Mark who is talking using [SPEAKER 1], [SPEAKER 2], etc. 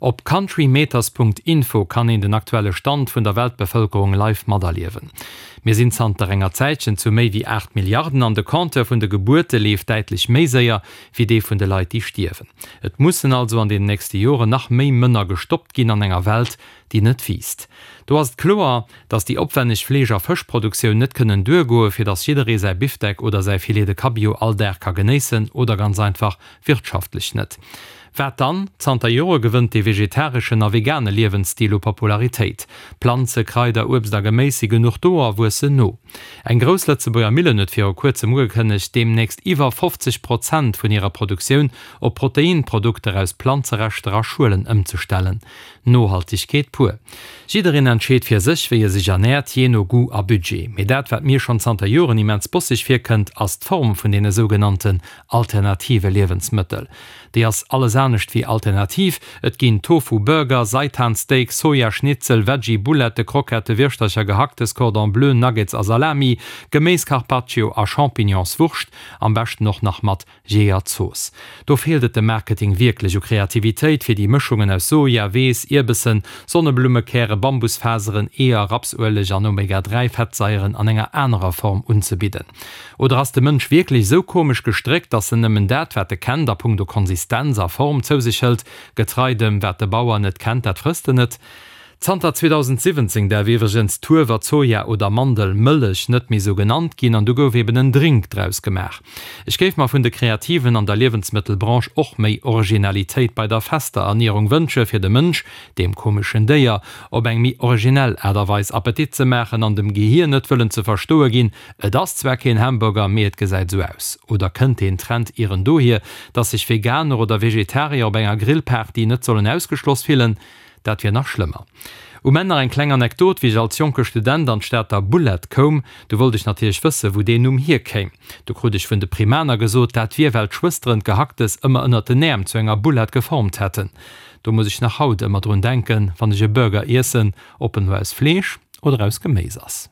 [SPEAKER 1] Op countrymeters.info kann een den aktuelle Stand vun der Weltbevëlkerung live materliewen. Mir sinn zanter enger Zäitchen zu méi wéi 8 Milliarden an de Compteur vun de Gebuerte leeft däitlech méi séier wéi dee vun de Leit déi stierwen. Et mussen also an den nächste Joren nach méi Mënner gestoppt ginn an enger Welt déi net wiisst. Do ass et kloer, dass déi opwänneg Fleesch a Fëschproduktioun net kënnen duergoe fir dass jidderee säi Bifdeck oder säi Filet de Cabillaud all Dag ka genéissen oder ganz einfach wirtschaftlech net. Wat dann? Zanter Jore gewënnt dee vegetareschen a vegane Liewensstil u Popularitéit. Planze, Kraider, Uebst a Geméis si genuch do a wuessen no. Eng grouss Lëtzebuerger Millen huet viru kuerzem ugekënnegt, deemnächst iwwer 50 Prozent vun hirer Produktioun op Proteinprodukter aus Planzereschter a Schuelen ëmzestellen. Nohaltegkeet pur. Jiddereen entscheet fir sech, wéi e sech ernäert, jee no Goût a Budget. Mee dat, wat mir schonn zanter Joren immens bosseg virkënnt, ass d'Form vun deene sougenannten alternative Liewensmëttel. Déi ass alles anescht wéi alternativ. Et ginn Tofu Burger, Seitan Steak, Soja Schnitzel, Veggie Boulette, Krockette, Wirschtercher, Gehacktes, Cordon Bleu, Nuggets a Salami, Geméis Carpaccio a Champignonswurscht, am beschten och nach mat Jeeër-Zooss. Do feelt et dem Marketing wierklech u Kreativitéit, fir déi Mëschungen aus Soja, Weess, Ierbessen, Sonneblummekäre, Bambusfaseren, Eeër, Rapsueleg an Omega 3 Fettsaieren an enger anerer Form unzebidden. Oder ass de Mënsch wierklech esou komesch gestréckt, dass en nëmmen dat, wat e kennt a punkto Konsistenz a Form zou sech hëlt, getrei dem, wat de Bauer net kennt, dat frësst en net? Zanter 2017 däerf iwwregens d'Huewer-, Soja oder Mandelmëllech net méi sou genannt ginn an du gouf eben en Drink draus gemaach. Ech géif mer vun de Kreativen an der Liewensmëttelbranche och méi Originalitéit bei der fester Ernierung wënsche fir dem Mënsch, deem komeschen Déier, op eng méi originell Aart a Weis Appetit ze maachen an dem Gehier net wëllen ze verstoe ginn, Et ass zwar keen Hamburger, mee et gesäit sou aus. Oder kënnt deen Trend ieren dohier, dass sech Veganer oder Vegetarier op enger Grillparty net sollen ausgeschloss fillen? Dat wier nach schlëmmer. Um Enn nach eng kleng Anekdot, Wéi ech als jonke Student an d'Stater Boulette koum, du wollt ech natierlech wëssen, wou deen Numm hierkéim. Du krut ech vun de Primaner gesot, dat wier, well d'Schwësteren d'Gehacktes ëmmer ënnert den Äerm zu enger Boulette geformt hätten. Do muss ech nach haut ëmmer drun denken, wann ech e Burger iessen, ob en elo aus Fleesch oder aus Geméis ass.